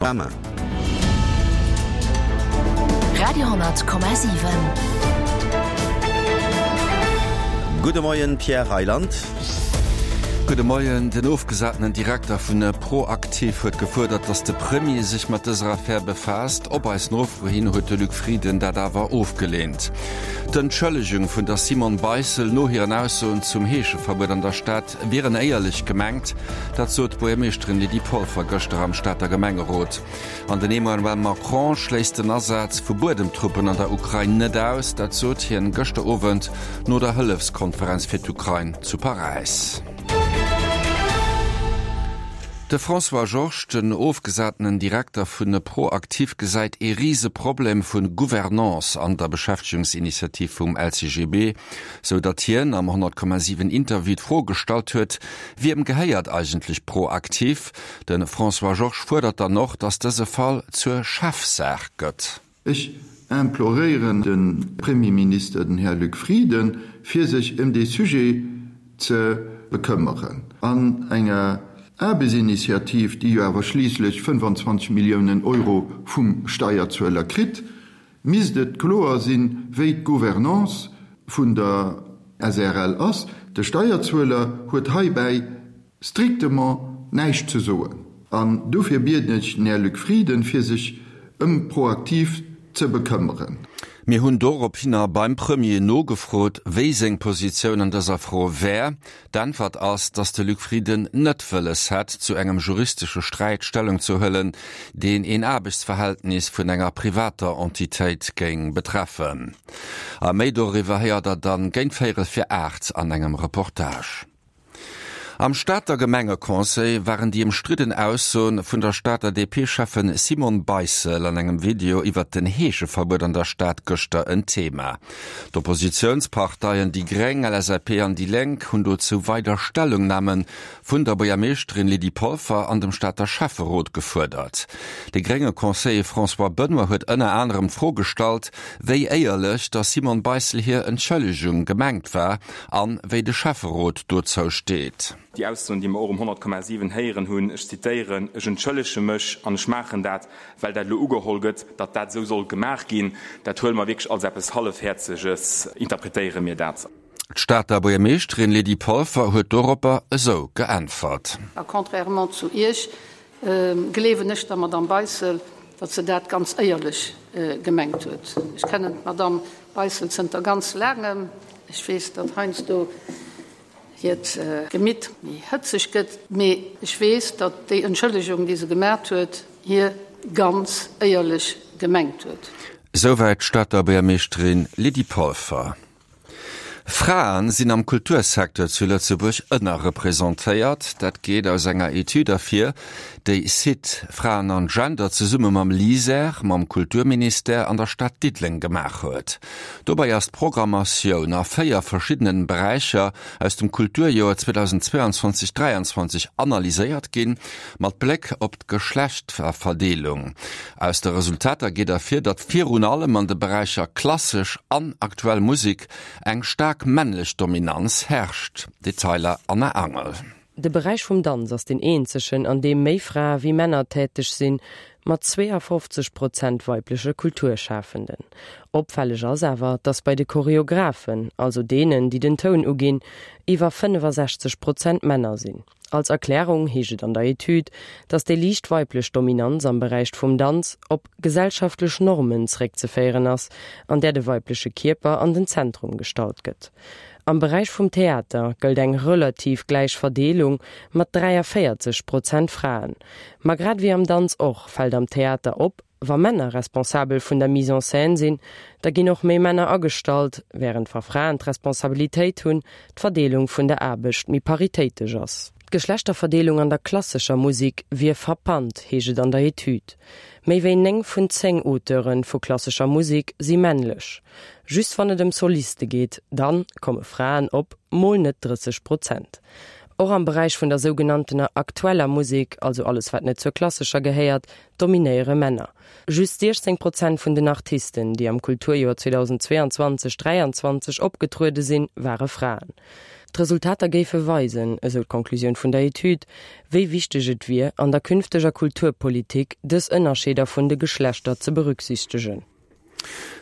Panorama. Radio,7. Gudde Moien, Pierre Reyland. Gudde Moien. Den ofgesatenen Direkter vun ProActif huet gefuerdert, datt de Premier sech mat dëser Affär befaasst. Op eis Nofro hin huet de Luc Frieden dat awer ofgeleent. D'Entschëllegung vun der Simone Beissel no hiren Aussoen zum Heescheverbuet an der Stad wieren éierlech gemengt, dat sot d'Buergermeeschterin Lydie Polfer gëschter am Stater Gemengerot. An den Emmanuel Macron schléisst den Asaz vu Buedemtruppen an der Ukrain net aus, dat sot hien gëschter Owend no der Hëllefskonferenz fir d'Ukrain zu Paräis. De François Georges, den ofgesatenen Direkter vun ProActif, gesäit ee Riseproblem vu Gouvernance an der Beschäftegungsinitiativ vum LCGB. Sou datt hien am 100,7 Interview d'Fro gestallt huet, Wiem gehéiert eigentlech ProActif? De François Georges fuerdert dann och, datt dëse Fall zur Chefsaach gëtt. Ech imploréieren de Premierminister, den Här Luc Frieden, fir sech ëm dee Sujet ze bekëmmeren. An enger Aarbechtsinitiativ, déi jo awer schliisslech 25 Milliounen Euro vum Steierzueler kritt, misst et kloer sinn, wéi d'Gouvernance vun der SREL ass. De Steierzueler huet heibäi strictement näischt ze soen. An dofir bieden ech den Här Luc Frieden, fir sech ëm ProActif ze bekëmmeren. Mir hunn dorophinner beim Premier nogefrot, wéi seng Positioun an dëser Fro wär. D'Äntwert ass, datt de Luc Frieden net wëlles hätt, zu engem juristesche Sträit Stellung ze huelen, deen een Aarbechtsverhältnis vun enger privater Entitéit géing betreffen. A méi doriwwer héiert der dann géint véierel fir 8 an engem Reportage. Am Stater Gemengeconseil waren déi ëmstridden Aussoen vun der Stater DP-Schäffen Simone Beissel an engem Video iwwert den Heescheverbuet an der Stad gëschter en Thema. D'Oppositiounsparteien déi Gréng, LSAP an déi Lénk hunn dozou weider Stellungname vun der Buergermeeschterin Lydie Polfer an dem Stater Schäfferot gefuerdert. De grénge Conseiller François Benoy huet ënner anerem d'Fro gestallt, wéi éierlech der Simone Beissel hir Entschëllegung gemengt war an wéi de Schäfferot dozou steet. Déi Aussoen, déi mer och um 100,7 héieren hunn, ech zitéieren, Ech entschëllege mech an ech maachen dat, well dat elo ugeholl gëtt, datt dat esou soll gemaach ginn, dat huele mer wierklech als eppes Hallefhäerzeges, interpretéiere mir dat. D'Stater Buergermeeschterin Lydie Polfer huet doropper esou geäntwert. A contrairement zu Iech gleewen ech der Madamm Beissel, datt se dat ganz éierlech gemengt huet. Ech kennen d'Madamm Beissel zënter ganz laangem. Ech weess, datt heiansdo hiert Gemitt méi hëtzeg gëtt, mee ech weess, datt déi Entschëllegung, déi se gemat huet, hir ganz éierlech gemengt huet. Souwäit d'Stater Buergermeeschterin Lydie Polfer. Frae sinn am Kultursecteur zu Lëtzebuerg ënnerrepresentéiert. Dat geet aus enger Etüd ervir, déi Site Fraen an Gender zesumme mam LISER, mam Kulturministère an der Stad Diddeleng gemaach huet. Dobäi ass d'Programmatioun a 4 verschiddenen Beräicher aus dem Kulturjoer 2022, 23 analyséiert ginn, mat Bléck op d'Geschlechterverdeelung. Aus de Resultater geet ervir, datt virun allem an de Beräicher klassesch an aktuell Musek eng staark männlech Dominanz herrscht. Detailer Anna Angel. De Beräich vum Danz ass deen eenzegen, an deem méi Frae wéi Männer täteg sinn, mat 52 Prozent weibleche Kulturschafenden. Opfälleg ass awer, datt bei de Choreographen, also deenen, déi den Toun uginn, iwwer 65 Prozent Männer sinn. Als Erklärung heescht et an der Etüd, datt déi liicht weiblech Dominanz am Beräich vum Danz op gesellschaftlech Normen zeréckzeféieren ass, an där de weibleche Kierper an den Zentrum gestallt gëtt. Am Beräich vum Theater gëllt eng relativ gläich Verdeelung mat 43 Prozent Fraen. Ma grad ewéi am Danz och, fält am Theater op, wa Männer responsabel vun der Mise en scène sinn, da ginn och méi Männer agestallt, wärend wa Fraen d'Responsabilitéit hunn, d'Verdeelung vun der Aarbecht méi paritéitesch ass. D'Geschlechterverdeelung an der klassescher Musek wier frappant, heescht et an der Etüd. Méi wéi 9 vun 10 Auteure vu klassescher Musek si männlech. Just wann et ëm Soliste geet, dann komme Fraen op mol net 30 Prozent. Och am Beräich vun der sougenanntener aktueller Musek, also alles wat net zur klassescher gehéiert, dominéiere Männer. Just 16 Prozent vun den Artisten, déi am Kulturjoer 2022, 23 opgetruede sinn, ware Fraen. D'Resultater géife weisen, esou d'Conclusioun vun der Etüd, wéi wichteg et wier, an der künfteger Kulturpolitik dës Ënnerscheeder vun de Geschlechter ze berücksichtegen.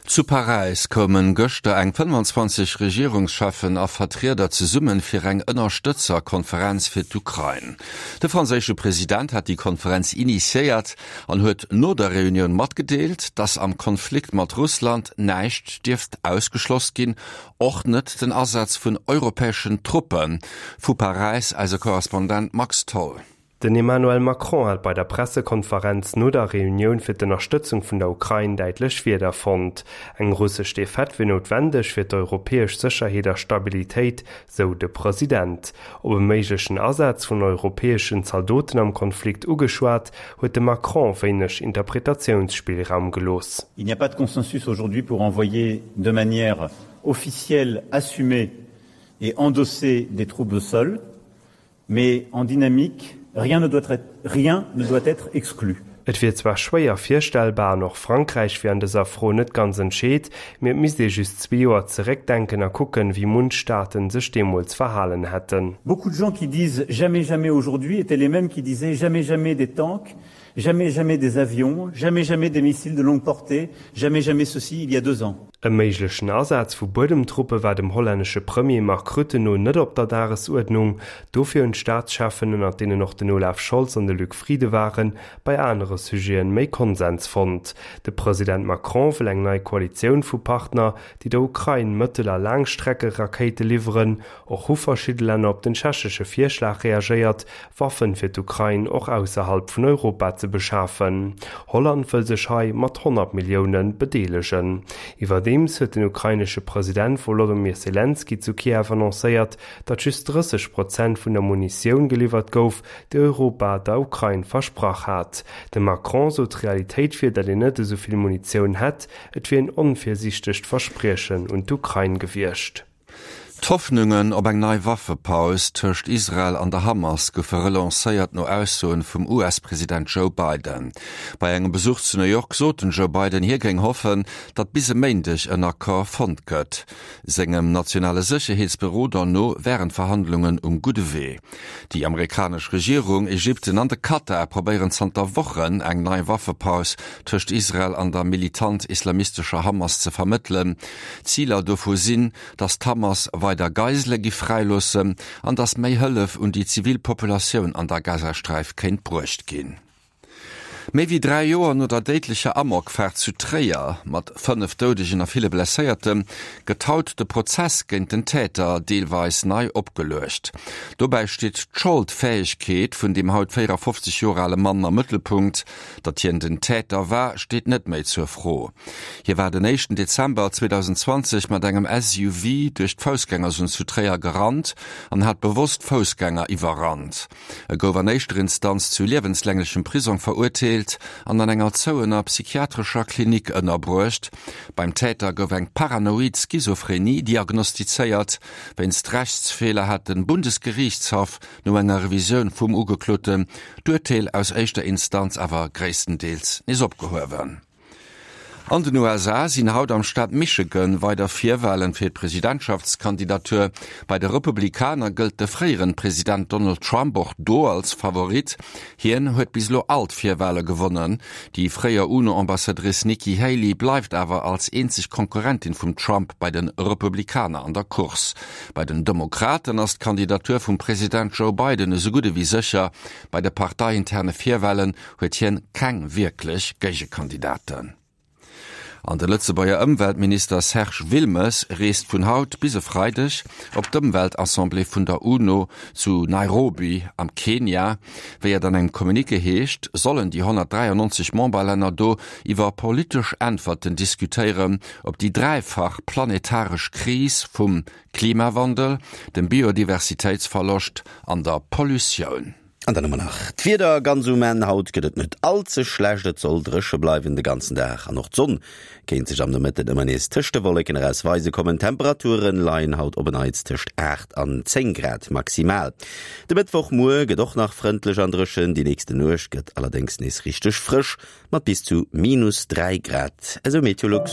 Zu Paräis koumen gëschter eng 25 Regierungscheffen a Vertrieder zesummen fir eng Ënnerstëtzerkonferenz fir d'Ukrain. De franséische President hat déi Konferenz initiéiert an huet no der Reunioun matgedeelt, datt am Konflikt mat Russland näischt dierft ausgeschloss ginn, och net den Asaz vun europäeschen Truppen. Vu Paräis eise Korrespondent Max Tholl. Den Emmanuel Macron hat bei der Pressekonferenz no der Reunioun fir d'Ënnerstëtzung vun der Ukrain däitlech Wierder fonnt. Eng russesch Defaite wier noutwendeg fir d'europäesch Sécherheet a Stabilitéit, sou de President. Op e méiglechen Asaz vun europäeschen Zaldoten am Konflikt ugeschwat, huet de Macron wéineg Interpretatiounsspillraum gelooss. Il n'y a pas de consensus aujourd'hui pour envoyer de manière officielle, assumée et endossée des troupes au sol. Mais en dynamique, rien ne doit être, rien ne doit être exclu. Et wier zwar schwéier virstellbar an och Frankräich wier an dëser Fro net ganz entscheet, mee et misst ee just zwee Joer zeréckdenken a kucken, wéi munch Staaten sech deemools verhalen hätten. Beaucoup de gens qui disent jamais jamais aujourd'hui étaient les mêmes qui disaient jamais jamais des tanks, Jamais jamais des avions, jamais jamais des missiles de longue portée, jamais jamais ceci il y a deux ans. E méiglechen Asaz vu Buedemtruppe war dem hollännesche Premier Mark Rutte no net op der Dagesuerdnung. Dofir hunn d'Staatscheffen, ënnert deenen och den Olaf Scholz an de Luc Frieden waren, bei anere Sujete méi Konsens fonnt. De President Macron wëll eng nei Koalitioun vu Partner, déi der Ukrain Mëttel a Laangstreckerakéite liwweren. Och hu verschidde Länner op den tschechesche Virschlag reagéiert, Waffen fir d'Ukrain och ausserhalb vun Europa ze beschafen. Holland wëll sech hei mat 100 Millioune bedeelegen. Iwwerdeems huet den ukrainesche President Wolodymyr Selenskyj zu Kiew annoncéiert, datt just 30 Prozent vun der Munitioun geliwwert gouf, déi Europa der Ukrain versprach hat. De Macron sot, d'Realitéit wier, datt een net esou vill Munitioun hätt. Et wier en onvirsiichtegt Verspriechen un d'Ukrain gewiescht. D'Hoffnungen op eng nei Waffepaus tëscht Israel an der Hamas goufe relancéiert no Aussoen vum US-President Joe Biden. Bei engem Besuch zu New York sot den Joe Biden, hie géing hoffen, datt bis e Méindeg en Accord fonnt gëtt. Sengem nationale Sécherheetsberoder no wären d'Verhandlungen um gudde Wee. Déi amerikanesch Regierung, Ägypten an de Katar probéieren zanter Wochen eng nei Waffepaus tëscht Israel an der militant-islamistescher Hamas ze vermëttelen. Ziler dovu sinn, datt d'Hamas weider Geisele giff fräiloossen an datt méi Hëllef un déi zivil Populatioun an der Gazasträif kéint bruecht ginn. Méi wéi 3 Joer no der déidlecher Amokfaart zu Tréier mat 5 Doudegen a ville Blesséierte gëtt haut de Prozess géint den Täter deelweis nei opgeluecht. Dobäi steet d'Scholdfäegkeet vun dem haut 54 Joer ale Mann am Mëttelpunkt. Datt hien den Täter war, steet net méi zur Fro. Hie war den éischten Dezember 2020 mat engem SUV duerch d'Foussgängerzon zu Tréier gerannt an hat bewosst Foussgänger iwwerrannt. E gouf an éischter Instanz zu liewenslänglechem Prisong verurteelt an an enger zouener psychiatrescher Klinik ënnerbruecht. Beim Täter gouf eng paranoid Schizophrenie diagnostizéiert. Wéinst Rechtsfeeler hat de Bundesgeriichtshaff no enger Revisioun vum Ugekloten d'Urteel aus éischter Instanz awer gréisstendeels nees opgehuewen. An den USA sinn haut am Staat Michigan weider Virwalen fir d'Presidentschaftskandidatur. Bei de Republikaner gëllt de fréieren President Donald Trump och do als Favorit. Hien huet bis elo all d'Virwale gewonnen. Déi fréier UNO-Ambassadrice Nikki Haley bleift awer als eenzeg Konkurrentin vum Trump bei de Republikaner an der Course. Bei den Demokraten ass d'Kandidatur vum President Joe Biden esou gutt ewéi sécher. Bei de parteiinterne Virwalen huet hien keng wierklech Géigekandidaten. An de Lëtzebuerger Ëmweltminister Serge Wilmes reest vun haut bis e Freideg op d'Ëmweltassemblée vun der UNO zu Nairobi am Kenia. Wéi et an engem Communiqué heescht, sollen déi 193 Memberlänner do iwwer politesch Äntwerten diskutéieren op déi dräifach planetaresch Kris vum Klimawandel, dem Biodiversitéitsverloscht an der Pollutioun. An dann hu mer nach d'Wieder ganz um Enn. Haut gëtt et net all ze schlecht, et soll dréche bleiwen de ganzen Dag an och d'Sonn kéint sech am Nomëtten ëmmer nees tëscht de Wolleken eraus weise kommen. D'Temperature leien haut op en Neits tëscht 8 an 10 Grad maximal. De Mëttwochmuer gëtt och nach frëndlech an dréchen, déi nächste Nuecht gëtt allerdéngs nees richteg frësch mat bis zu minus 3 Grad, esou Meteolux.